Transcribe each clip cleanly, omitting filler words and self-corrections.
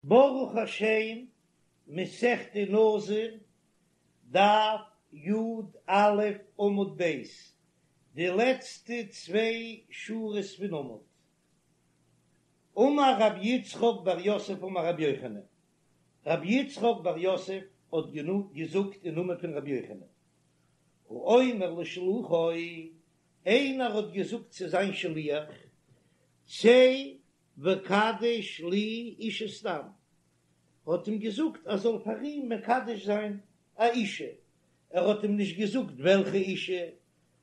ברוך השם, מסכת נזיר, דף י"א עמוד ב', די לעצטע צוויי שורות פון עמוד. אמר רבי יצחק בר יוסף אמר רבי יוחנן, רבי יצחק בר יוסף האט געזאגט אין נאמען פון רבי יוחנן, האומר לשלוחו, איינער האט געזאגט צו זיין שליח, צא וקדש לי אישה סתם, האט אים געזאגט ער זאל פאר אים מקדש זיין א אישה, ער האט אים נישט געזאגט וועלכע אישה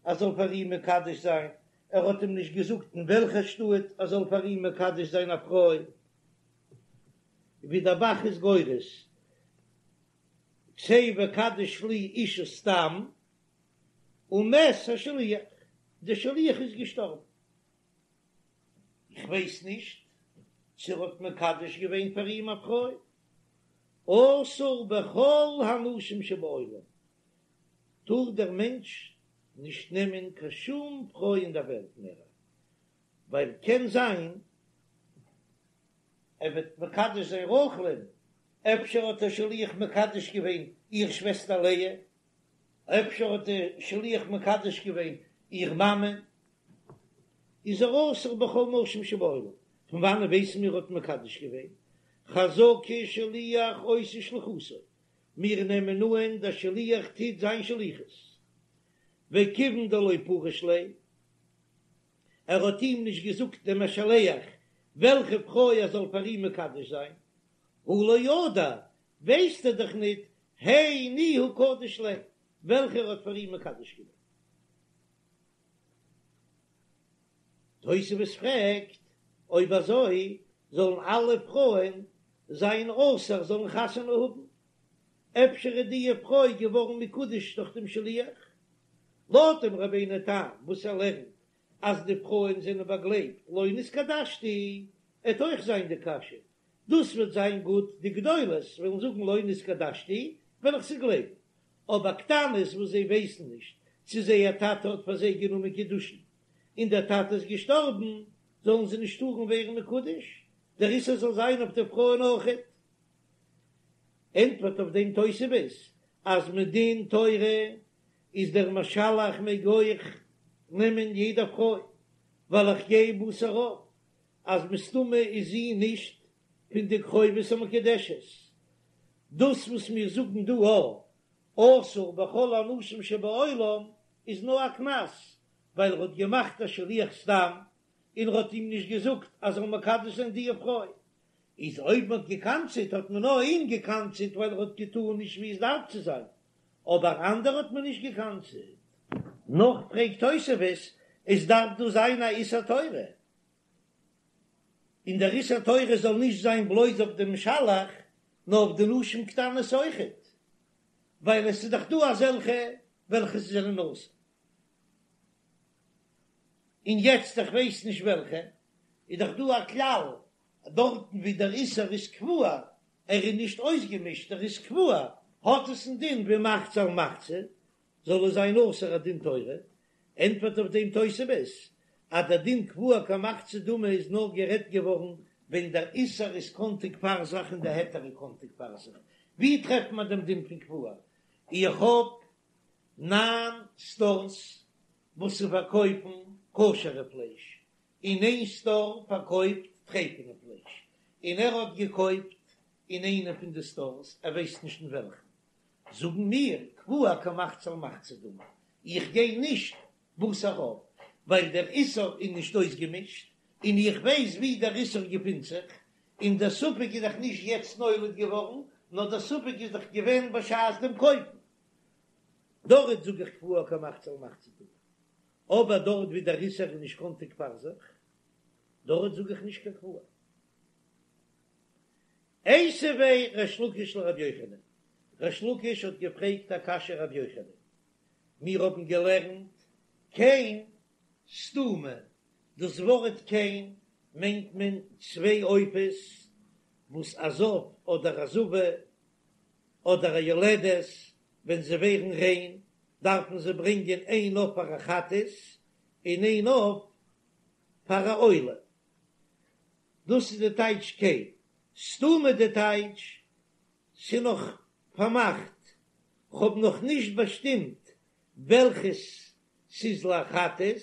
ער זאל פאר אים מקדש זיין, ער האט אים נישט געזאגט אין וועלכע שטאט ער זאל פאר אים מקדש זיין א פרוי, ווי דער ב"ח איז גורס, צא וקדש לי אישה סתם, ומת השליח, דער שליח איז געשטארבן. איך ווייס נישט צו ער האט מקדש געווען פאר אים א פרוי, אסור בכל הנשים שבעולם, טאר דער מענטש נישט נעמען קיין שום פרוי אין דער וועלט מער, ווייל קען זיין ער וועט מקדש זיין רחל'ן, אפשר האט דער שליח מקדש געווען איר שוועסטער לאה, אפשר האט דער שליח מקדש געווען איר מאמע, איז ער אסור בכל נשים שבעולם, פון וואנען ווייסן מיר האט מקדש געווען? חזקה שליח עושה שליחותו, מיר נעמען אן דער שליח טוט זיין שליחות, וכיוון דלא פריש ליה, ער האט אים נישט געזאגט דעם משלח וועלכע פרוי ער זאל פאר אים מקדש זיין, הא לא ידע, ווייסט ער דאך ניט הי ניהו קדיש ליה, וועלכע ער האט פאר אים מקדש געווען. תוספות פרעגט, אויב אזוי זאלן אלע פרויען זיין אסור זאלן חתונה האבן? אפשר איז די פרוי געווארן מקודש דורך דעם שליח? לויט דעם רבינו תם וואס ער לערנט אז די פרויען זענען באגלייבט לא נתקדשתי, עט אויך זיין די קשיא, דאס וועט זיין גוט, די גדולות וועלן זאגן לא נתקדשתי, וועל איך זיי גלייבן, אבער קטנות וואס זיי ווייסן נישט צו זייער טאטע האט פאר זיי גענומען קידושין און דער טאטע איז געשטארבן, זאלן זיי נישט טארן ווערן מקודש, דער איסור זאל זיין אויף די פרויען אויכעט. ענטפערט אויף דעם תוספות אז מדין תורה איז דער משלח מעג אויך נעמען יעדע פרוי, ווייל איך גיי בתר רוב אז מסתמא איז זי נישט פון די קרובות המקודשת. דאס וואס מיר זאגן דא א אסור בכל הנשים שבעולם איז נאר א קנס ווייל ער האט געמאכט א שליח סתם און ער האט אים נישט געזאגט אז ער זאל מקדש זיין די פרוי, איז אויב מען האט געקנס'עט האט מען נאר אים געקנס'עט ווייל ער האט געטאן נישט ווי עס דארף צו זיין, אבער אנדערע האט מען נישט געקנס'עט. נאך פרעגט תוספות, עס דארף דא זיין א איסור תורה, און דער איסור תורה זאל נישט זיין בלויז אויף דעם משלח, נאר אויף די נשים קטנות אויכעט, ווייל עס איז דאך דא אזעלכע וועלכע זענען אסור. און יעצט איך ווייס נישט וועלכע, איז דאך דא א כלל, דארטן ווי דער איסור איז קבוע, ער איז נישט אויסגעמישט, ער איז קבוע, האט עס א דין ווי מחצה על מחצה, זאל עס זיין אסור א דין תורה, ענטפערט אויף דעם תוספות אז דער דין קבוע כמחצה דמי איז נאר גערעדט געווארן ווען דער איסור איז קאנטיג פאר זיך און דער היתר איז קאנטיג פאר זיך, ווי טרעפט מען דעם דין פון קבוע? איך האב ניין סטארס וואס צו פארקויפן כשר'ע פלייש, און איין סטאר פארקויפט טרייפענע פלייש, און ער האט געקויפט אין איינע פון די סטארס, ער ווייסט נישט אין וועלכן, זאגן מיר, קבוע כמחצה על מחצה דמי, איך גיי נישט בתר רוב, ווייל דער איסור איז נישט אויסגעמישט, און איך ווייס ווי דער איסור געפינט זיך, און דער ספק איז דאך נישט יעצט נולד געווארן, נאר דער ספק איז דאך געווען בשעת דעם קויפן. דארט זאג איך קבוע כמחצה על מחצה דמי, אבער דארט ווי דער איסור איז נישט קאנטיג פאר זיך, דארט זאג איך נישט קיין קבוע. איתיביה ריש לקיש לרבי יוחנן, ריש לקיש האט געפרעגט א קשיא רבי יוחנן, מיר האבן געלערנט קן סתומה, דאס ווארט קן מיינט מען צוויי עופות וואס א זב אדער א זבה אדער א יולדת ווען זיי ווערן ריין דארפן זיי ברענגען איין עוף פאר א חטאת און איין עוף פאר א עולה, דאס איז די טייטש קן. סתומה די טייטש ס'נאך פארמאכט, כ'האב נאך נישט באשטימט וועלכעס ס'איז לחטאת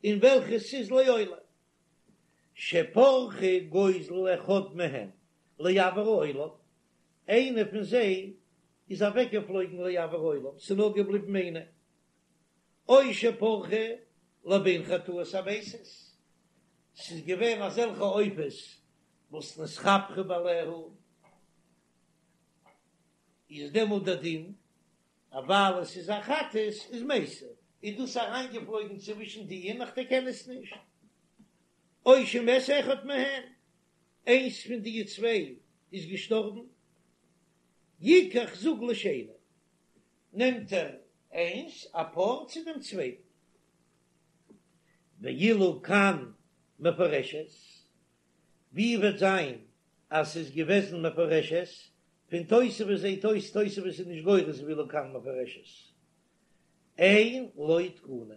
און וועלכעס ס'איז לעולה. שפרחה גוזל אחד מהן לאויר העולם, איינע פון זיי איז אוועקגעפלויגן לאויר העולם, ס'איז נאר געבליבן איינע, או שפרחה לבין חטאות המתות, ס'איז געווען אזעלכע עופות וואס נתכפרו בעליה, איז דעמאלט דער דין אז ווייל עס איז א חטאת איז מתה, איז דאס אריינגעפלויגן צווישן די און איך דערקען עס נישט. או שמת אחד מהן, איינס פון די צוויי איז געשטארבן, יקח זוג לשני, נעמט ער איינס א פאר צו דעם צווייטן. ואילו קן מפורשת, ווי וועט זיין אז ס'איז געוועזן מפורשת, פון תוספות זעהט אויס תוספות איז נישט גורס ואילו קן מפורשת, אין לו תקנה,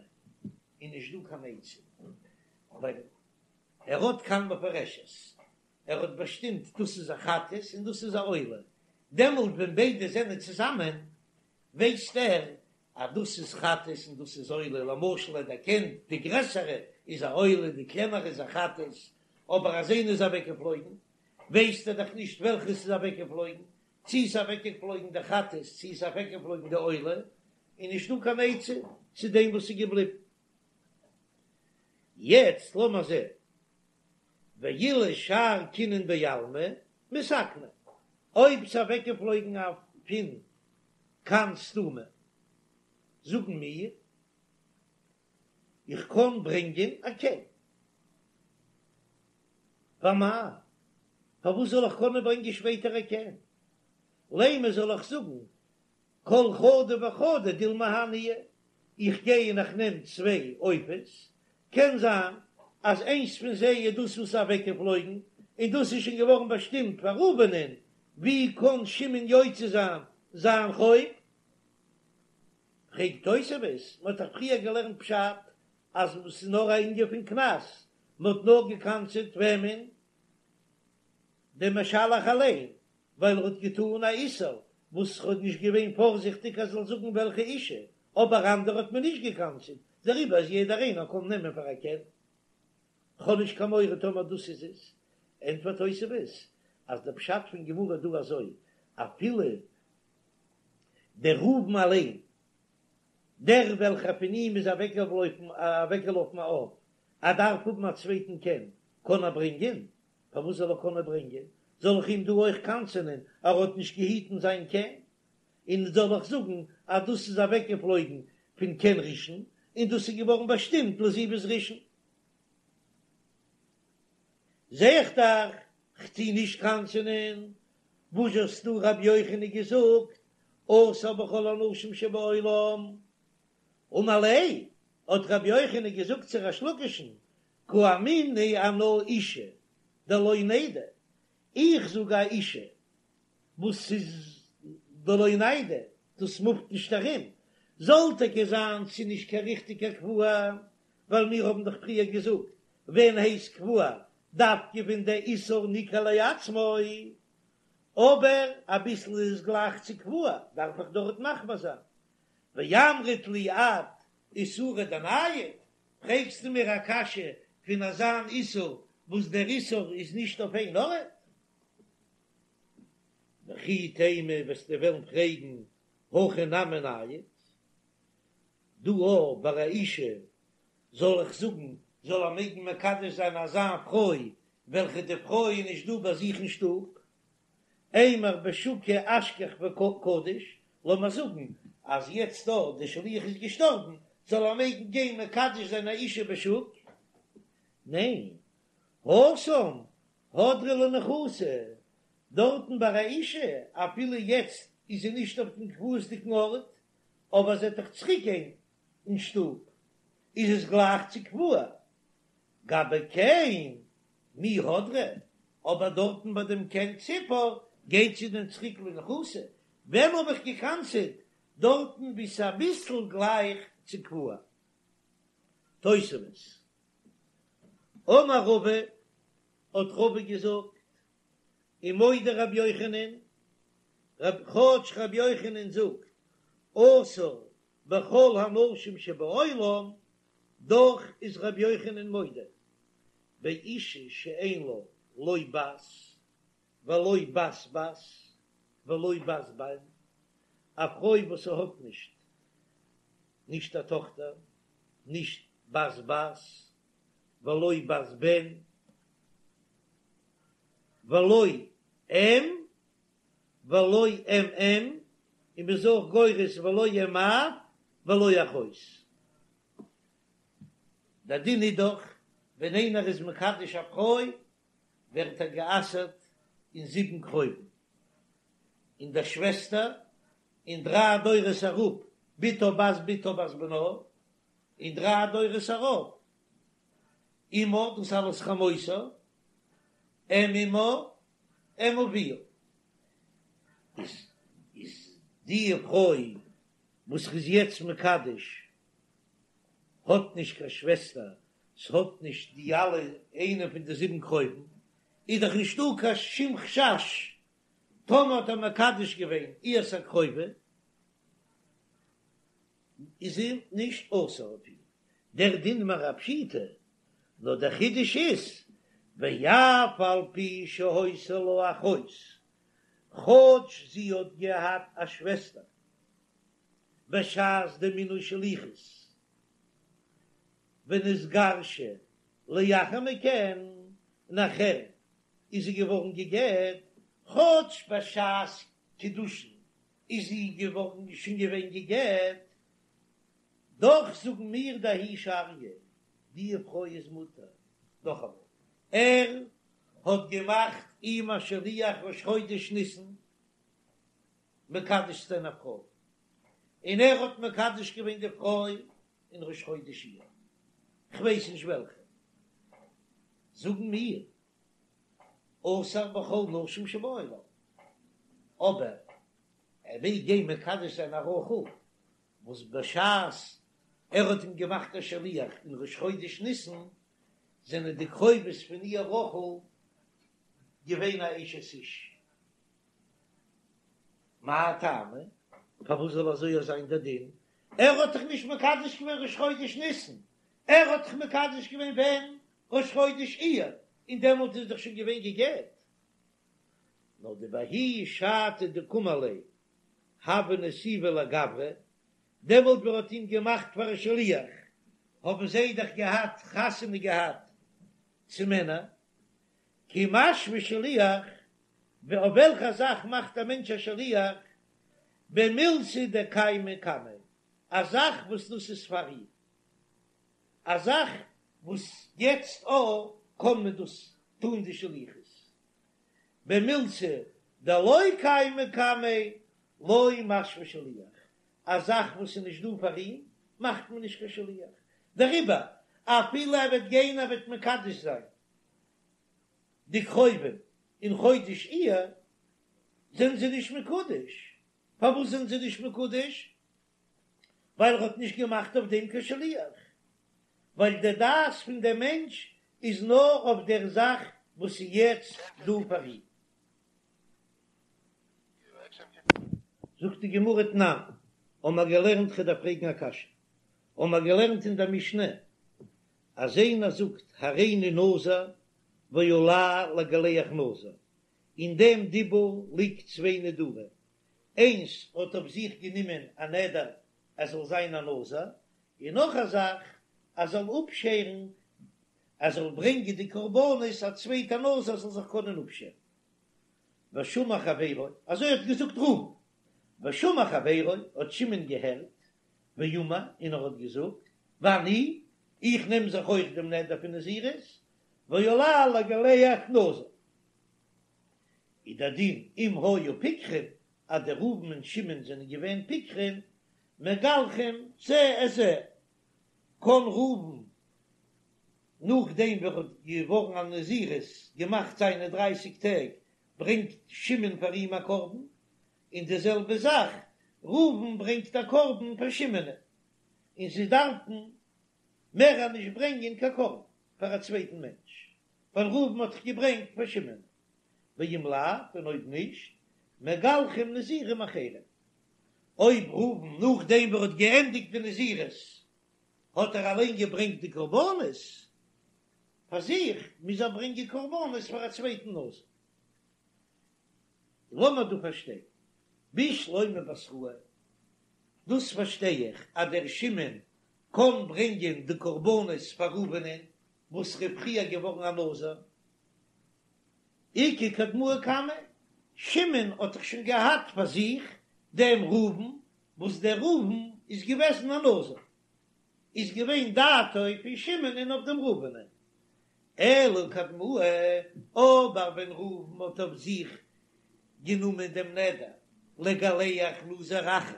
איז נישט דא קיין עצה, ווייל ער האט קן מפורשת, ער האט באשטימט דאס איז א חטאת און דאס איז א עולה, דעמאלט ווען ביידע זענען צוזאמען ווייסט ער אז דאס איז חטאת און דאס איז עולה, למשל ער דערקענט די גרעסערע איז א עולה די קלענערע איז א חטאת, אבער אז איינע איז אוועקגעפלויגן ווייסט ער דאך נישט וועלכע ס'איז אוועקגעפלויגן, צי איז אוועקגעפלויגן די חטאת צי איז אוועקגעפלויגן די עולה, איז נישטא קיין עצה צו דעם וואס איז געבליבן. יעצט לאמער זען, ואילו שאר קינין בעלמא מתקני, אויב ס'איז אוועקגעפלויגן א פון קן סתומה, זאגן מיר, איך קען ברענגען א קן. ואמאי, פארוואס זאל איך קענען ברענגען שפעטער א קן? לימא זאל איך זאגן כל חדא וחדא דילמא הא ניהו, איך גיי און איך נעם צוויי עופות, קען זיין אז איינס פון זיי איז דאס וואס איז אוועקגעפלויגן, און דאס איז שוין געווארן באשטימט פאר ראובנ'ען, ווי קען שמעון יוצא זיין זיין חוב? פרעגט תוספות, מען האט דאך פריער געלערנט פשט אז עס איז נאר א ענין פון קנס, מען האט נאר געקנס'עט וועמען? דעם משלח אליין, ווייל ער האט געטאן א איסור וואס ער האט נישט געווען פארזיכטיג אז ער זאל זאגן וועלכע אישה, אבער אנדערע האט מען נישט געקנס'עט, דעריבער איז יעדער איינער קען נעמען פאר א קן. כ'האב נישט קיין מורא טאמער דאס איז עס. ענטפערט תוספות אז דער פשט פון גמרא דא אזוי, אפילו דער ראובן אליין, דער וועלכער פון אים איז אוועקגעלאפן א עוף, ער דארף האבן א צווייטן קן, קען ער ברענגען? פארוואס זאל ער קענען ברענגען? זאל איך אים דא אויך קנס'ענען ער האט נישט געהיטן זיין קן? און זאל איך זאגן אז דאס איז אוועקגעפלויגן פון קן ראשון און דאס איז געווארן באשטימט לזיווג ראשון? זע איך דאך כ'טו נישט קנס'ענען. וואס האסטו רבי יוחנן געזאגט אסור בכל הנשים שבעולם? אמר ליה, האט רבי יוחנן געזאגט צו ריש לקיש'ן, קאמינא אנא אשה דלא ניידא, איך זאג א אשה וואס איז דלא ניידא, דאס מופט נישט ארום, זאל טאקע זיין ס'איז נישט קיין ריכטיגע קבוע, ווייל מיר האבן דאך פריער געזאגט ווען הייסט קבוע דווקא ווען דער איסור ניכר לעצמו, אבער אביסל איז עס גלייך צו קבוע, דארף איך דארט מחמיר זיין, ואמרת לי את איסורא דנייד, פרעגסטו מיר א קשיא פון אזאן איסור וואס דער איסור איז נישט אויף איין ארט? וכי תימא וועסטו וועלן פרעגן הכא נמי נייד, דא אויך ביי א אישה זאל איך זאגן זאל ער מעגן מקדש זיין אזא פרוי וועלכע די פרוי איז נישט דא ביי זיך אין שטוב, אימר בשוקא אשכח וקדיש, לאמיר זאגן אז יעצט דא די שליח איז געשטארבן, זאל ער מעגן גיין מקדש זיין א אישה בשוק? ניין, התם הדרא לניחותא, דארטן ביי א אישה, אפילו יעצט איז זי נישט אויף דעם קבוע'סדיגן ארט, אבער זי וועט דאך צוריק גיין אין שטוב, איז עס גלייך צו קבוע. גבי קן מי הדרא, אבער דארטן ביי דעם קן ציפור גייט זי דען צוריק לניחותא, ווען האב איך געקנס'עט דארטן ווי ס'איז אביסל גלייך צו קבוע? תוספות, אמר רבא, האט רבא געזאגט. ומודה רבי יוחנן, כאטש רבי יוחנן זאגט אסור בכל הנשים שבעולם, דאך איז רבי יוחנן מודה באישה שאין לה לא בת ולא בת בת ולא בת בן, א פרוי וואס האט נישט נישט א טאכטער, נישט בת בת ולא בת בן ולא אם ולא אם אם, און מ'איז אויך גורס ולא אם אב ולא אחות. דער דין איז דאך ווען איינער איז מקדש א פרוי ווערט ער גע'אסר'ט אין זיבן קרובים, אין דער שוועסטער, און דריי דורות אראפ בתה בת בתה בת בנה, און דריי דורות אראפ אמה, דאס אלעס חמותה, אם אמה, אם אביה. איז איז די פרוי וואס ר'איז יעצט מקדש האט נישט קיין שוועסטער, ס'האט נישט די אלע איינע פון די זיבן קרובים, איז דאך נישטא קיין שום חשש טאמער האט ער מקדש געווען איהר'ס א קרובה איז זי נישט אסור אויף אים, דער דין מיר א פשיטא, נאר דער חידוש איז ואף על פי שהיתה לה אחות, כאטש זי האט געהאט א שוועסטער בשעת די מינוי שליחות ונתגרשה לאחר מכן, נאכער איז זי געווארן גע'גט, כאטש בשעת קידושין איז זי געווארן שוין געווען גע'גט, דאך זאגן מיר דההיא שריא, די פרוי איז מותר. נאכאמאל, ער האט געמאכט אים א שליח ראש חודש ניסן מקדש צו זיין א פרוי, און ער האט מקדש געווען די פרוי אין ראש חודש אייר, כ'ווייס נישט וועלכע, זאגן מיר אסור בכל נשים שבעולם, אבער ער מעג גיין מקדש זיין א רחל וואס בשעת ער האט אים געמאכט א שליח אין ראש חודש ניסן זענען די קרובות פון איר רחל געווען א אשת איש. מאי טעמא? פארוואס זאל אזוי זיין דער דין? ער האט דאך נישט מקדש געווען ראש חודש ניסן, ער האט דאך מקדש געווען ווען? ראש חודש אייר, און דעמאלט איז דאך שוין געווען גע'גט. נאר דבההיא שעתא דקאמר ליה הוה נסיבא לגברא, דעמאלט ווען ער האט אים געמאכט פאר א שליח, האבן זיי דאך געהאט חתונה געהאט צו מענער, כי משוו שליח, אויף וועלכע זאך מאכט א מענטש א שליח, במילתא דקיימא קמיה, א זאך וואס דאס איז פאר אים, א זאך וואס יעצט א קען מען דאס טון די שליחות, במילתא דלא קיימא קמיה לא משוו שליח, א זאך וואס איז נישט דא פאר אים מאכט מען נישט קיין שליח, דעריבער אפילו ער וועט גיין ער וועט מקדש זיין די קרובים אין חודש אייר זענען זיי נישט מקודש, פארוואס זענען זיי נישט מקודש? ווייל ער האט נישט געמאכט אויף דעם קיין שליח, ווייל די דעת פון דעם מענטש איז נאר אויף דער זאך וואס איז יעצט דא פאר אים. זאגט די גמרא תנן, האבן מיר געלערנט כ'דארף פרעגן א קשיא, האבן מיר געלערנט אין דער משנה אז איינער זאגט הריני נזיר ועלי לגלח נזיר, אין דעם דיבור ליגט צוויי נדרים, איינס האט אויף זיך גענומען א נדר ער זאל זיין א נזיר, און נאך א זאך ער זאל אפשערן, ער זאל ברענגען די קרבנות א צווייטע נזיר זאל זיך קענען אפשערן. ושמע חברו, אזוי האט געזאגט ראובן, ושמע חברו, האט שמעון געהערט, ואמר, און ער האט געזאגט, ואני, איך נעם זיך אויך דעם נדר פון נזירות, ועלי לגלח נזיר. איז דער דין אם היו פיקחים, אז דער ראובן און שמעון זענען געווען פיקחים, מגלחין זה את זה, קען ראובן נאכדעם ווי ער האט געווארן א נזירות, געמאכט זיינע דרייסיג טעג, ברענגט שמעון פאר אים א קרבן, און די זעלבע זאך ראובן ברענגט א קרבן פאר שמעון, און זיי דארפן מער נישט ברענגען קיין קרבן פאר א צווייטן מענטש, ווייל ראובן האט דאך געברענגט פאר שמעון. ואם לאו, און אויב נישט, מגלחים נזירים אחרים. אויב ראובן נאכדעם וואס ער האט געענדיגט די נזירות האט ער אליין געברענגט די קרבנות פאר זיך, מוז ער ברענגען קרבנות פאר א צווייטן נזיר. לאמיר דא פארשטיין, בשלמא בתראי, דאס פארשטיי איך אז דער שמעון קען ברענגען די קרבנות פאר ראובנ'ען וואס ר'איז פריער געווארן א נזיר, איכא קדמאי קמיה, שמעון האט דאך שוין געהאט פאר זיך דעם ראובן, וואס דער ראובן איז געוועזן א נזיר, איז געווען דעתו פון שמעונ'ען אויף דעם ראובנ'ען, אלא קדמאי, אבער ווען ראובן האט אויף זיך גענומען דעם נדר לגלח נזיר אחר,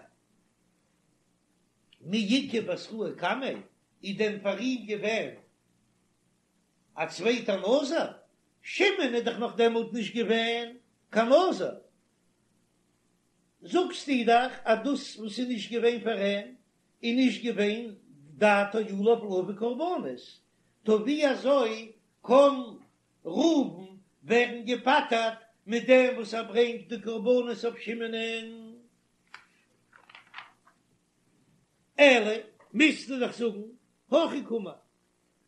מי איכא בתראי קמיה, איז דען פאר אים געווען א צווייטער נזיר? שמעון איז דאך נאך דעמאלט נישט געווען קיין נזיר, זאגסטו דאך אז דאס וואס איז נישט געווען פאר אים איז נישט געווען דעתו עליו להביא קרבנות, טא ווי אזוי קען ראובן ווערן געפטר'ט מיט דעם וואס ער ברענגט די קרבנות אויף שמעונ'ען? אלא מוזטו דאך זאגן הכי קאמר,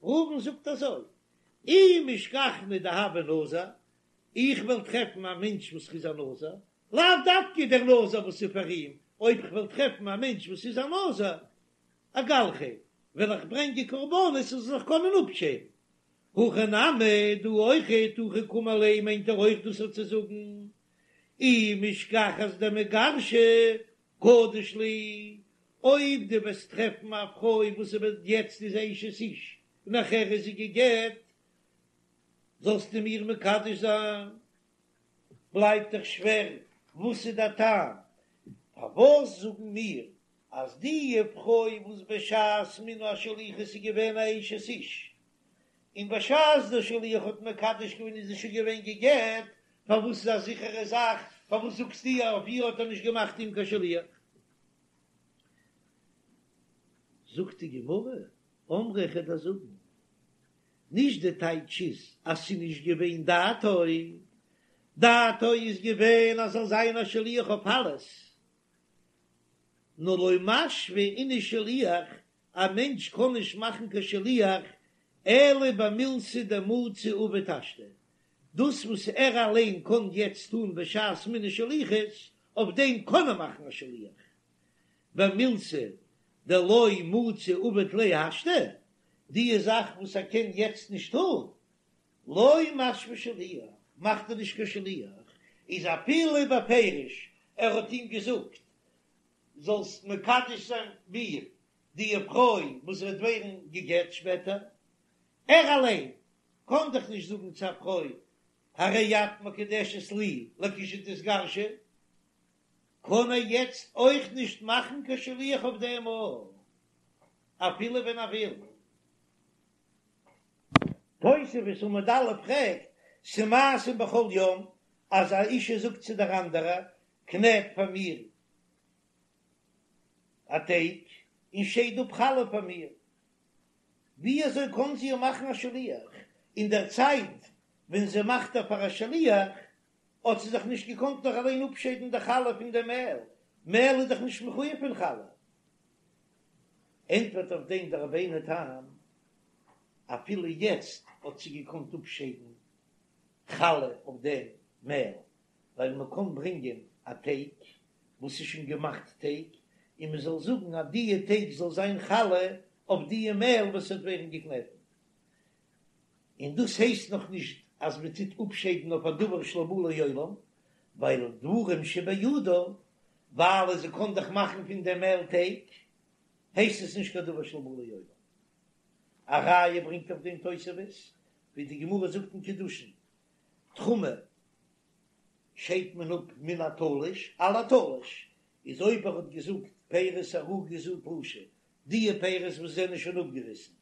ראובן זאגט אזוי, אי משכחנא דהוה נזיר, איך וועל טרעפן א מענטש וואס איז א נזיר, לאו דווקא דער נזיר וואס איז פאר אים, אויב איך וועל טרעפן א מענטש וואס איז א נזיר, אגלחיה, וועל איך ברענגען קרבנות ער זאל זיך קענען אפשערן. הכא נמי, דא אויכעט, הכי קאמר ליה מיינט ער אויך דאס צו זאגן, אי משכחת דמיגרשא קדיש לי, אויב דו וועסט טרעפן א פרוי וואס איז יעצט איז אשת איש און נאכער איז זי גע'גט, זאלסטו מיר מקדש זיין. בלייבט דאך שווער, וואס איז דער טעם פארוואס זאגן מיר אז די פרוי וואס בשעת מינוי השליחות איז געווען א אשת איש, און בשעת דער שליח האט מקדש געווען איז זי שוין געווען גע'גט, פארוואס איז א זיכערע זאך, פארוואס זאגסטו אז אויף איר האט ער נישט געמאכט אים קיין שליח? זאגט די גמרא, אמרי איך וועל דיר זאגן, נישט די טייטש איז אז ס'איז נישט געווען דעתו, דעתו איז געווען אז זאל זיין א שליח אויף אלעס, נאר לא משוי איניש שליח, א מענטש קען נישט מאכן קיין שליח אלא במילתא דמצי עביד השתא, דאס וואס ער אליין קען יעצט טון בשעת מינוי שליחות, אויף דעם קען ער מאכן א שליח, במילתא דלא מצי עביד ליה השתא, די זאך וואס ער קען יעצט נישט טון, לא משוי שליח, מאכט ער נישט קיין שליח, איז אפילו בפירוש ער האט אים געזאגט זאלסט מקדש זיין מיר די פרוי וואס וועט ווערן גע'גט שפעטער, ער אליין קען דאך נישט זאגן צו א פרוי הרי את מקודשת לי לכשתתגרשי, קען ער יעצט אויך נישט מאכן קיין שליח אויף דעם אויך, אפילו ווען ער וויל. תוספות עמוד א' פרעגט, ס'מעשים בכל יום אז א אישה זאגט צו דער אנדערע, קנעט פאר מיר א טייג און שייד אפ חלה פאר מיר, ווי אזוי קען זי איר מאכן א שליח? אין דער צייט ווען זי מאכט איר פאר א שליח האט זי זיך נישט געקאנט נאך אליין אפשיידן די חלה פון די מעל, מעל איז דאך נישט מחויב פון חלה. ענטפערט אויף דעם דער רבינו תם, אפילו יעצט האט זי געקאנט אפשיידן חלה אויף דעם מעל, ווייל מען קען ברענגען א טייג וואס איז שוין געמאכט טייג, און מען זאל זאגן אז דיע טייג זאל זיין חלה אויף דיע מעל וואס וועט ווערן געקנעטן, און דאס הייסט נאך נישט אז מען טוט אפשיידן אויף א דבר שלא בא לעולם, ווייל דברים שבידה, ווייל זי קען דאך מאכן פון דעם מעל טייג, הייסט עס נישט קיין דבר שלא בא לעולם. א ראיה ברענגט אויף דעם תוספות, ווי די גמרא זאגט אין קידושין, תרומה שיידט מען אפ מן התלוש על התלוש, איז אויב ער האט געזאגט פירות ערוגה זו תלושה, דיע פירות וואס זענען שוין אפגעריסן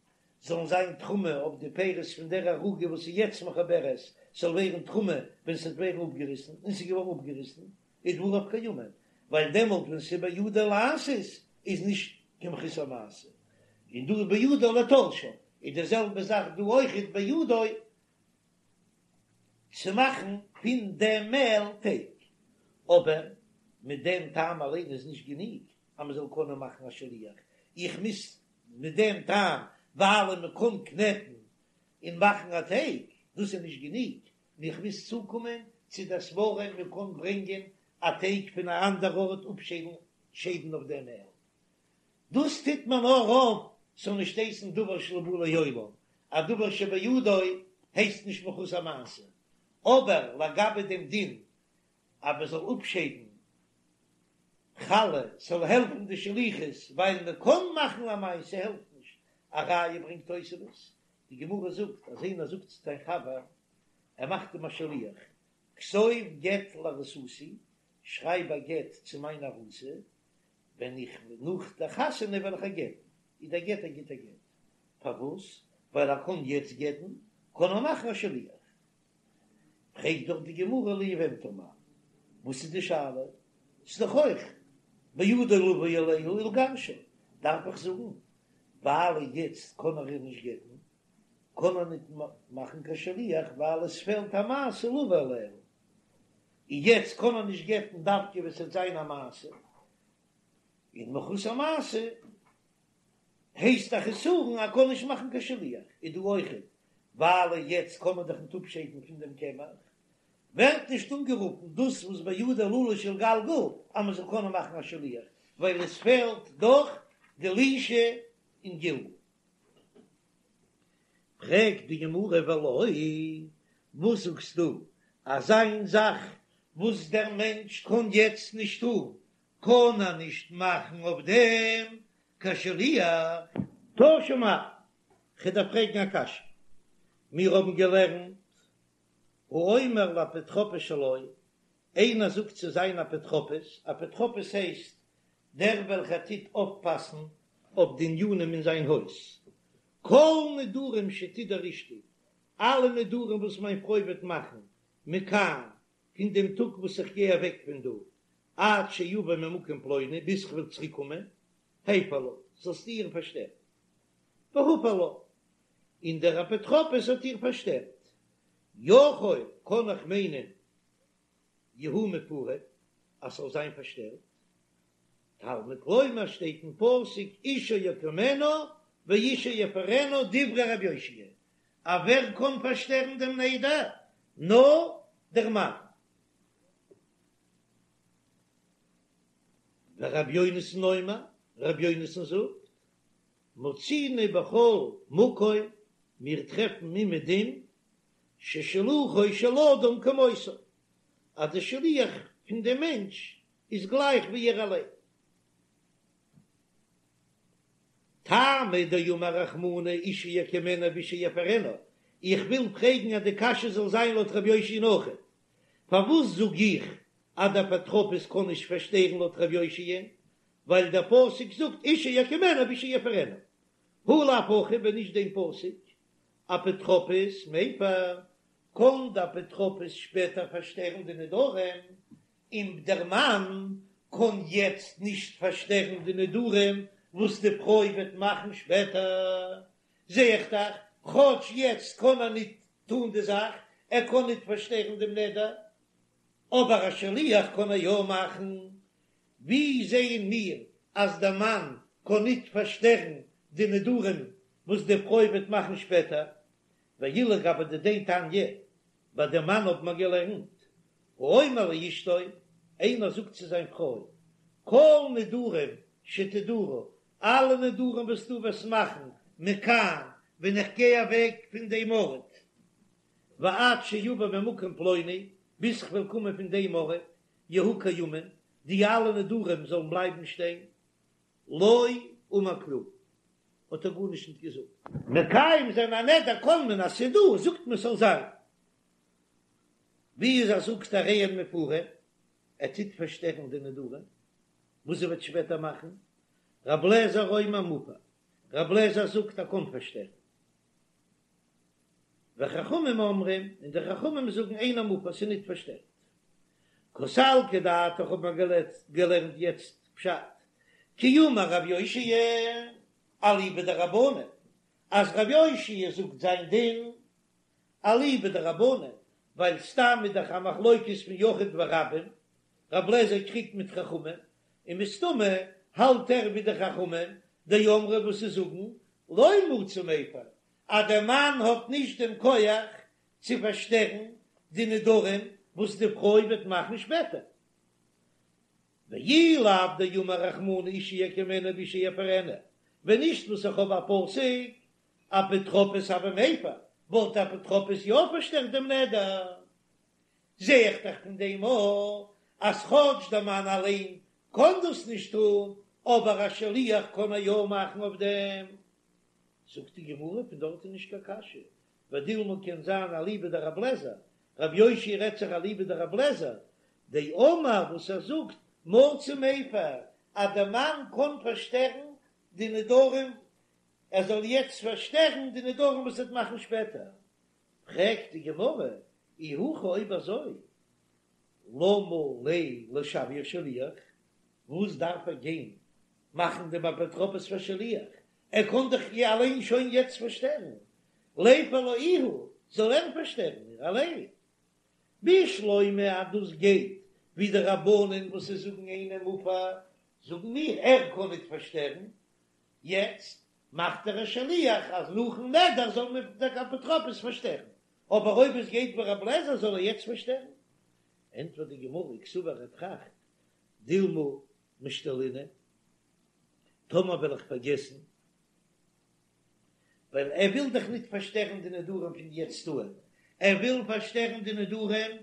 זאלן זיין תרומה אויף די פירות פון דער ערוגה וואס איז יעצט מחוברת זאל ווערן תרומה ווען ס'וועט ווערן אפגעריסן, און ס'איז געווארן אפגעריסן, איז דבריו קיימין, ווייל דעמאלט ווען ס'איז בידה לעשות איז נישט קיין מחוסר מעשה, און דא איז בידה לתלשה, איז די זעלבע זאך דא אויכעט בידו. צו מאכן פון דעם מעל טייג, אבער מיט דעם טעם אליין איז נישט גענוג אז מען זאל קענען מאכן א שליח, איך מוז מיט דעם טעם ווייל מען קען קנעטן און מאכן א טייג, דאס איז נישט גענוג, איך מוז צוקומען צו דער סברא מען קען ברענגען א טייג פון א אנדער ארט אפשיידן שיידן אויף דעם מעל. דאס טוט מען נאר אויף ס'זאל נישט הייסן דבר שלא בא לעולם, א דבר שבידו הייסט נישט מחוסר מעשה, אבער לגבי דעם דין אז מען זאל אפשיידן חלה ס'זאל העלפן די שליחות ווייל מען קען מאכן א מעשה העלפט נישט, א ראיה ברענגט תוספות, די גמרא זאגט אז איינער זאגט צו זיין חבר ער מאכט אים א שליח, כתוב גט לארוסתי, שרייב א גט צו מיין ארוסה, ווען איך נאך דער חתונה וועל איך איר גט'ן, איז דער גט א גוטער גט. פארוואס? ווייל ער קען יעצט גט'ן, קען ער מאכן א שליח. פרעגט דאך די גמרא ליבמתה מאי, וואס איז די שאלה? ס'איז דאך אויך בידו לבוא עליה ולגרשה, דארף איך זאגן ווייל יעצט קען ער איר נישט גט'ן, קען ער ניט מאכן קיין שליח ווייל עס פעלט א מעשה לבוא עליה, און יעצט קען ער נישט גט'ן דווקא ווען ס'וועט זיין א מעשה, און מחוסר מעשה הייסט א חסרון ער קען נישט מאכן קיין שליח, איז דא אויכעט ווייל יעצט קען מען דאך ניט אפשיידן פון דעם קמח, ווערט נישט אנגערופן דאס וואס בידו ללוש ולגלגל אז מען זאל קענען מאכן א שליח, ווייל עס פעלט דאך די לישה און גלגול. פרעגט די גמרא ולא, וואס זאגסטו אז איין זאך וואס דער מענטש קען יעצט נישט טון, קען ער נישט מאכן אויף דעם קיין שליח? תא שמע, כ'דארף פרעגן א קשיא, מיר האבן געלערנט האומר לאפוטרופוס שלו, איינער זאגט צו זיין אפוטרופוס, אפוטרופוס הייסט דער וועלכער טוט אויפפאסן אויף די ענינים אין זיין הויז, כל נדרים שתדור אשתי, אלע נדרים וואס מיין פרוי וועט מאכן, מכאן, פון דעם טאג וואס איך גיי אוועק פון דא, עד שאבא ממקום פלוני, ביז כ'וועל צוריק קומען, הפר לה, זאלסטו איר פארשטערן. והפר לה, און דער אפוטרופוס האט איר פארשטערט. יכול, קען איך מיינען, יהיו מופרים, אז ס'זאל זיין פארשטערט. תלמוד לומר שטייט אין פסוק אישה יקימנו ואישה יפרנו דברי רבי יאשיה, אז ווער קען פארשטערן דעם נדר? נאר דער מאן. ורבי יונתן אומר, רבי יונתן זאגט, מצינו בכל מקום, מיר טרעפן אומעדום ששלוחו של אדם כמותו, אז דער שליח פון דעם מענטש איז גלייך ווי ער אליין. טעמא דאמר רחמנא אישה יקימנו ואישה יפרנו, איך וויל פרעגן אז די קשיא זאל זיין לויט רבי יאשיה'ן אויכעט, פארוואס זאג איך אז דער אפוטרופוס קען נישט פארשטערן לויט רבי יאשיה'ן, ווייל דער פסוק זאגט אישה יקימנו ואישה יפרנו, הא לאו הכי ווען נישט דעם פסוק אפוטרופוס מפר, קען דער אפוטרופוס שפעטער פארשטערן די נדרים, און דער מאן קען יעצט נישט פארשטערן די נדרים וואס די פרוי וועט מאכן שפעטער, זע איך דאך, כאטש יעצט קען ער ניט טאן די זאך, ער קען ניט פארשטערן דעם נדר, אבער א שליח קען ער יא מאכן. ווי זעען מיר אז דער מאן קען ניט פארשטערן די נדרים וואס די פרוי וועט מאכן שפעטער? ואילו גבי דידיה תניא, ביי דעם מאן האט מען געלערנט, האומר לאשתו, איינער זאגט צו זיין פרוי, כל נדרים שתדורי, אלע נדרים וואס דו וועסט מאכן, מכאן, ווען איך גיי אוועק פון דעם ארט, ועד שאבא ממקום פלוני, ביז כ'וועל קומען פון דעם ארט, יהיו קיימין, די אלע נדרים זאלן בלייבן שטיין, לא אמר כלום, האט ער גארנישט ניט געזאגט. מקיים זיין א נדר קאן מען אז ס'איז דא, זאגט מען ס'זאל זיין. ווי איז אז זאגט הרי הן מופרין, ער טוט פארשטערן די נדרים וואס זי וועט שפעטער מאכן, רב לעזער אומר מופר, רב לעזער זאגט ער קען פארשטערן. וחכמים אומרים, און די חכמים זאגן אינו מופר, ס'איז ניט פארשטערט. קא סלקא דעתך האט מען געלערנט יעצט פשט, כי אמר רב יאשיה אליבא דרבנן, אז רב יאשיה זאגט זיין דין אליבא דרבנן, ווייל סתם איז דאך א מחלוקת פון יחיד ורבים, רב לעזער קריגט מיט חכמים, און מסתמא האלט ער ווי די חכמים דאמרי וואס זיי זאגן לא מצי מיפר אז דער מאן האט נישט דעם כח צו פארשטערן די נדרים וואס די פרוי וועט מאכן שפעטער. ואי לאו דאמר רחמנא אשה יקימנו ואשה יפרנו, ווען נישט וואס איך האב א פסוק אפוטרופוס הוי מיפר, וואלט אפוטרופוס יא פארשטערט דעם נדר. זע איך דאך פון דעם אויך אז כאטש דער מאן אליין קען דאס נישט טון, אבער א שליח קען ער יא מאכן אויף דעם. זאגט די גמרא, פון דארט איז נישט קיין קשיא, ודילמא קען זיין אליבא דרב לעזער, רב יאשיה רעדט זיך אליבא דרב לעזער, דאמר וואס ער זאגט מצי מיפר אז דער מאן קען פארשטערן די נדרים, ער זאל יעצט פארשטערן די נדרים וואס ער וועט מאכן שפעטער, פרעגט די גמרא, אי הכי אויב אזוי למה ליה לשוייה שליח, וואס דארף ער גיין מאכן דעם אפוטרופוס פאר שליח, ער קען דאך איר אליין שוין יעצט פארשטערן, ליפר לה איהו, זאל ער פארשטערן איר אליין. בשלמא אז דאס גייט ווי די רבנן וואס זיי זאגן אינו מופר, זאגן מיר ער קען ניט פארשטערן, יעצט מאכט ער א שליח אז נאכן נדר זאל מען דער אפוטרופוס פארשטערן, אבער אויב עס גייט ווי רב לעזער זאל ער יעצט פארשטערן. ענטפערט די גמרא, קסבר ער טראכט, דילמא משתלינא, טאמער וועל איך פארגעסן, ווייל ער וויל דאך ניט פארשטערן די נדרים פון יעצט אן, ער וויל פארשטערן די נדרים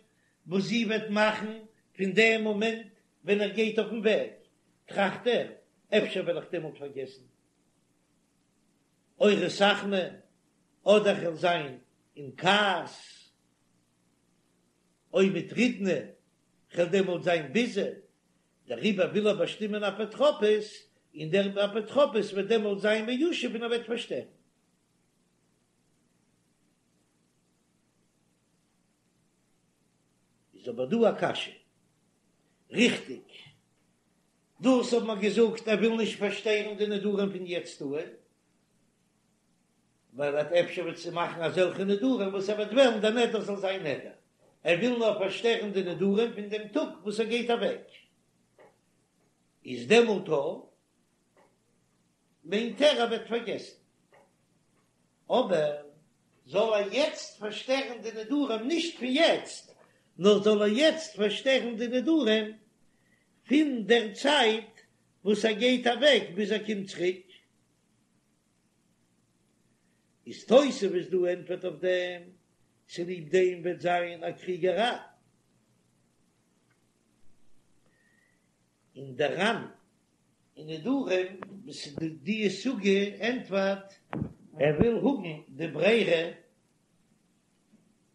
וואס זי וועט מאכן פון דעם מאמענט ווען ער גייט אויפן וועג, טראכט ער, אפשר וועל איך דעמאלט פארגעסן, או רתחנא, אדער כ'וועל זיין אין כעס, או מטרידנא, כ'וועל דעמאלט זיין ביזי, דעריבער וויל ער באשטימען אפוטרופוס, און דער אפוטרופוס וועט דעמאלט זיין מיושב און ער וועט פארשטערן. איז אבער דא א קשיא. ריכטיג, דאס האט מען געזאגט ער וויל נישט פארשטערן די נדרים פון יעצט אן, ווייל ער האט אפשר וועט זי מאכן אזעלכע נדרים וואס ער וועט וועלן דער נדר זאל זיין נדר, ער וויל נאר פארשטערן די נדרים פון דעם טאג וואס ער גייט אוועק, איז דעמאלט מיינט ער ער וועט פארגעסן, אבער זאל ער יעצט פארשטערן די נדרים נישט פון יעצט, נאר זאל ער יעצט פארשטערן די נדרים פון דער צייט וואס ער גייט אוועק ביז ער קומט צוריק. איז תוספות דא ענטפערט אויף דעם, צוליב דעם וועט זיין א קריגעריי אין דער ר"ן אין נדרים וואס איז די סוגיא ענטפערט, ער וויל האבן די ברירה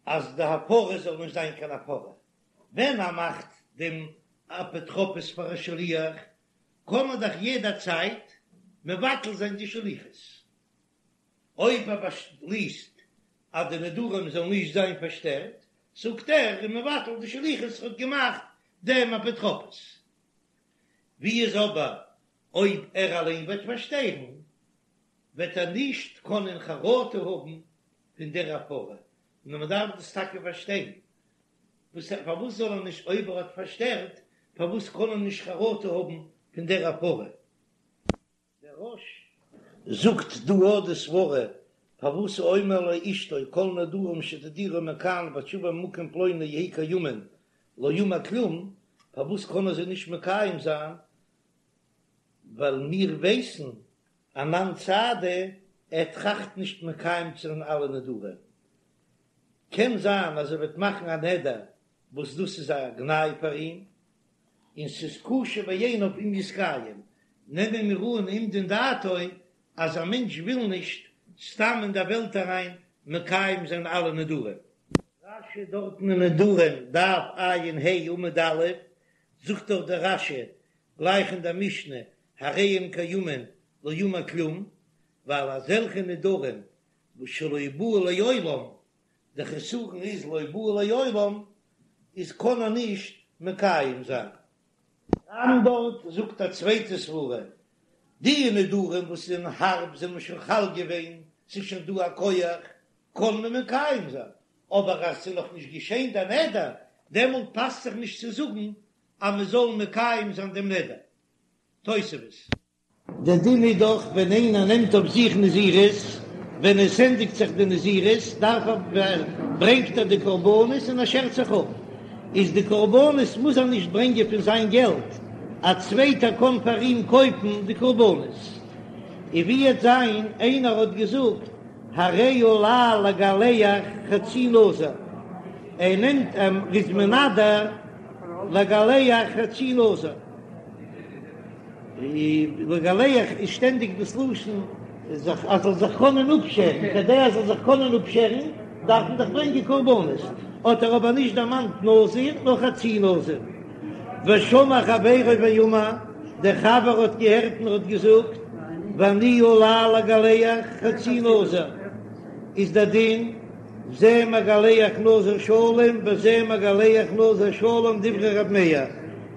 אז די הפרה זאל נישט זיין קיין הפרה, ווען ער מאכט דעם אפוטרופוס פאר א שליח קען מען דאך יעדע צייט מבטל זיין די שליחות, אויב ער באשליסט אז די נדרים זאלן נישט זיין פארשטערט, זאגט ער איז מבטל די שליחות האט געמאכט דעם אפוטרופוס. ווי איז אבער אויב ער אליין וועט פארשטערן, וועט ער נישט קענען חרטה האבן פון דער הפרה, נאר מען דארף דאס טאקע פארשטיין, וואס פארוואס זאל ער נישט אויב ער האט פארשטערט, פארוואס קען ער נישט חרטה האבן פון דער הפרה? דער רא"ש זאגט דא אט די סברה פארוואס האומר לאשתו כל נדרים שתדירי מכאן ועד שאבוא ממקום פלוני יהיו קיימין לא אמר כלום, פארוואס קען ער זיי נישט מקיים זיין, ווייל מיר ווייסן אנן סהדי ער טראכט נישט מקיים צו זיין אלע נדרים, קען זיין אז ער וועט מאכן א נדר וואס דאס איז א גנאי פאר אים, און ס'איז קשה בעיניו אם יתקיים, נעמען מיר אן אומדין דעתו אז א מענטש וויל נישט סתם אין דער וועלט אריין מקיים זיין אלע נדרים. רש"י דארטן אין נדרים דף ע"ה עמוד א', זאגט דאך דער רש"י גלייך אין דער משנה הרי הם קיימין לא אמר כלום, ווייל אזעלכע נדרים וואס שלא באו לעולם די חסרון איז לא באו לעולם איז קען ער נישט מקיים זיין. ר"ן דארט זאגט א צווייטע סברה, די נדרים וואס זענען הארב זענען שוין חל געווען, ס'איז שוין דא א כח, קען מען מקיים זיין, אבער אז ס'איז נאך נישט געשען דער נדר, דעמאלט פאסט זיך נישט צו זאגן אז מען זאל מקיים זיין דעם נדר. תוספות. דער דין איז דאך ווען איינער נעמט אויף זיך נזירות, ווען עס ענדיגט זיך די נזירות דארף ער, ברענגט ער די קרבנות און ער שערט זיך אפ, איז די קרבנות מוז ער נישט ברענגען פון זיין געלט, א צווייטער קען פאר אים קויפן די קרבנות. און ווי וועט זיין איינער האט געזאגט הרי עלי לגלח חצי נזיר, ער נעמט ער איז מנדר לגלח חצי נזיר. לגלח איז שטענדיג דאס לשון זיך אז זאל זיך קענען אפשערן, כדי ער זאל זיך קענען אפשערן דארף מען דאך ברענגען קרבנות, האט ער אבער נישט דערמאנט נזיר נאר חצי נזיר. ושמע חברו ואמר, דער חבר האט געהערט און ער האט געזאגט, ואני עלי לגלח חצי נזיר, איז דער דין זה מגלח נזיר שלם וזה מגלח נזיר שלם דברי ר' מאיר,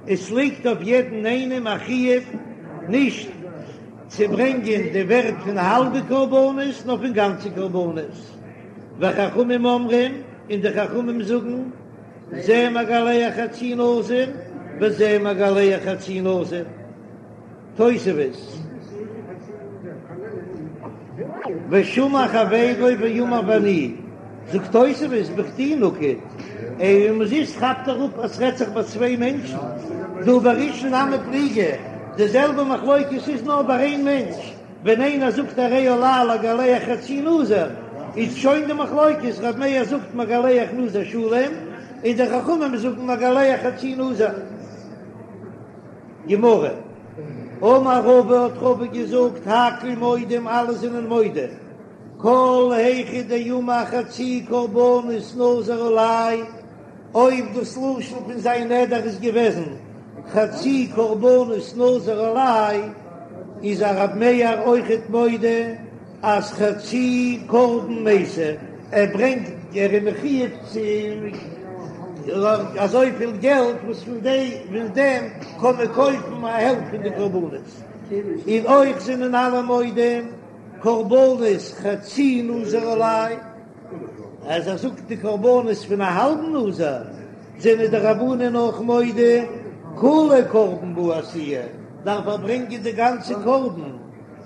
עס ליגט אויף יעדן איינעם א חיוב נישט צו ברענגען די ווערט פון האלבע קרבנות נאר פון גאנצע קרבנות, וחכמים אומרים, און די חכמים זאגן, זה מגלח חצי נזיר וזה מגלח חצי נזיר. תוספות, ושמע חברו ואמר ואני, זאגט תוספות בכדי נקט, און אומזיסט כאפט ער אפ אז ס'רעדט זיך ביי צוויי מענטשן, דהא בראשון נמי פליגי, די זעלבע מחלוקת איז נאר ביי איין מענטש, ווען איינער זאגט הרי עלי לגלח חצי נזיר, איז שוין די מחלוקת, ר' מאיר זאגט מגלח נזיר שלם, און די חכמים זאגן מגלח חצי נזיר. גמרא, אמר רבא האט רבא געזאגט הכל מודים אלע זענען מודה, כל היכא דאמר חצי קרבנות נזיר עלי, אויב דאס לשון פון זיין נדר איז געוועזן חצי קרבנות נזיר עלי, איז א רב מאיר אויכעט מודה אז חצי קרבן מייתי, ער ברענגט ער איז מחויב צו אזויפיל געלט וואס פון די פון דעם קען מען קויפן א העלפט פון די קרבנות, און אויך זענען אלע מודים קרבנות חצי נזיר עלי, אז ער זאגט די קרבנות פון א האלבן נזיר זענען די רבנן אויך מודה כוליה קרבן בעי איתויי, דארף ער ברענגען די גאנצע קרבן.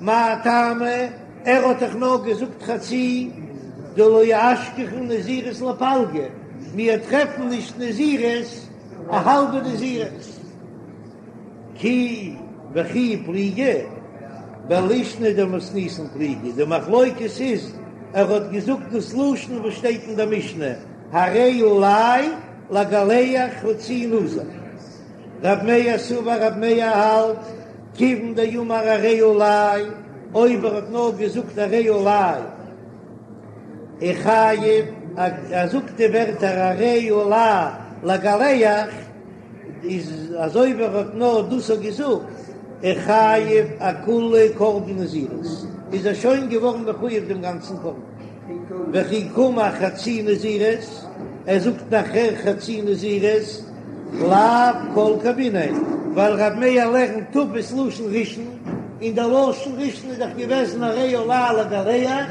מאי טעמא, ער האט דאך נאר געזאגט חצי, דלא אשכחן נזירות לפלגא, מיר טרעפן נישט נזירות א האלבע נזירות. כי וכי פליגי, בלישנא דמתניתין פליגי, די מחלוקת איז ער האט געזאגט דאס לשון וואס שטייט אין דער משנה, הרי עלי לגלח חצי נזיר. רב מאיר סבר רב מאיר האלט, כיוון דאמר הרי עלי, אויב ער האט נאר געזאגט הרי עלי, איחייב, ער זאגט די ווערטער הרי עלי לגלח, איז אזוי ווי ער האט נאר דאס האט געזאגט, איחייב אכוליה קרבן נזירות, איז ער שוין געווארן מחויב דעם גאנצן קרבן. וכי קאמר חצי נזירות, ער זאגט נאכער חצי נזירות, לאו כל כמיניה, ווייל רב מאיר לערנט תפס לשון ראשון, און דער לשון ראשון איז דאך געוועזן הרי עלי לגלח,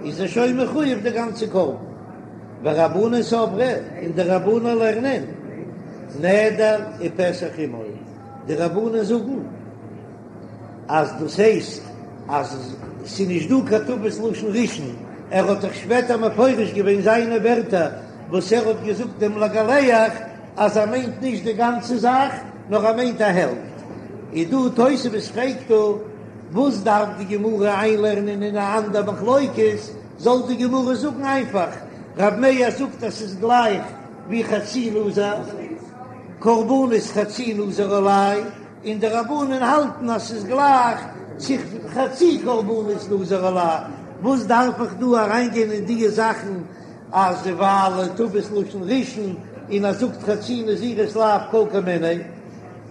איז ער שוין מחויב די גאנצע קרבן. ורבנן סברי, און די רבנן לערנען נדר ופתח עמו, די רבנן זאגן אז דאס הייסט אז ס'איז נישט דא קיין תפס לשון ראשון, ער האט דאך שפעטער מפרש געווען זיינע ווערטער וואס ער האט געזאגט דעם לגלח אז ער מיינט נישט די גאנצע זאך נאר ער מיינט א העלפט. איז דא תוספות פרעגט דא וואס דארף די גמרא איינלערנען אין א אנדער מחלוקת, זאל די גמרא זאגן איינפאך רב מאיר זאגט אז ס'איז גלייך ווי חצי נזיר, קרבנות חצי נזיר עלי, און די רבנן האלטן אז ס'איז גלייך צו חצי קרבנות נזיר עלי, וואס דארף איך דא אריינגיין אין דיע זאכן אז ווייל תפס לשון ראשון און ער זאגט חצי נזירות לאו כל כמיניה,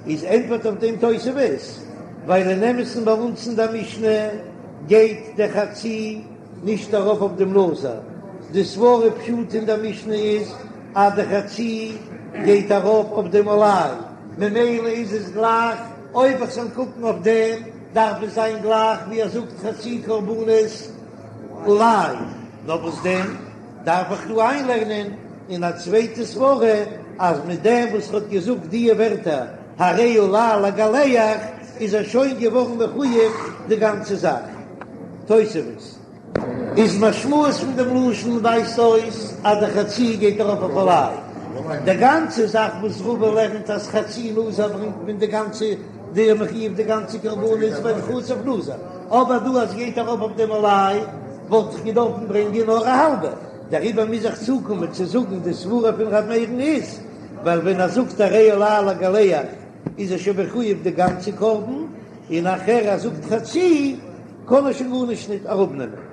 איז ענטפערט אויף דעם תוספות, ווייל אין אמת'ן ביי אונז אין דער משנה גייט דער חצי נישט ארויף אויף דעם נזיר, די סברא פשוט אין דער משנה איז אז די חצי גייט ארויף אויף דעם עלי, ממילא איז עס גלייך, אויב איך זאל קוקן אויף דעם דארף עס זיין גלייך ווי ער זאגט חצי קרבנות עלי, נאר וואס דען? דארף איך דא איינלערנען אין א צווייטע סברא אז מיט דעם וואס ער האט געזאגט דיע ווערטער הרי עלי לגלח איז ער שוין געווארן מחויב די גאנצע זאך. תוספות. איז משמעות פון דעם לשון ווייזט אויס אז די חצי גייט ארויף אויף עלי. די גאנצע זאך וואס רבא לערנט אז חצי נזיר ברענגט מען די גאנצע די מחויב די גאנצע קרבנות ווייל חצוף נזיר, אבער דא אז ס'גייט ארויף אויף דעם עלי וואלט איך געדארפן ברענגען נאר א האלבע, דעריבער מוז איך צוקומען צו זאגן די סברה פון ר' מאיר'ן איז ווייל ווען ער זאגט הרי עלי לגלח איז ער שוין מחויב די גאנצע קרבן, און נאכער ער זאגט חצי קען ער שוין גארנישט ניט אראפנעמען.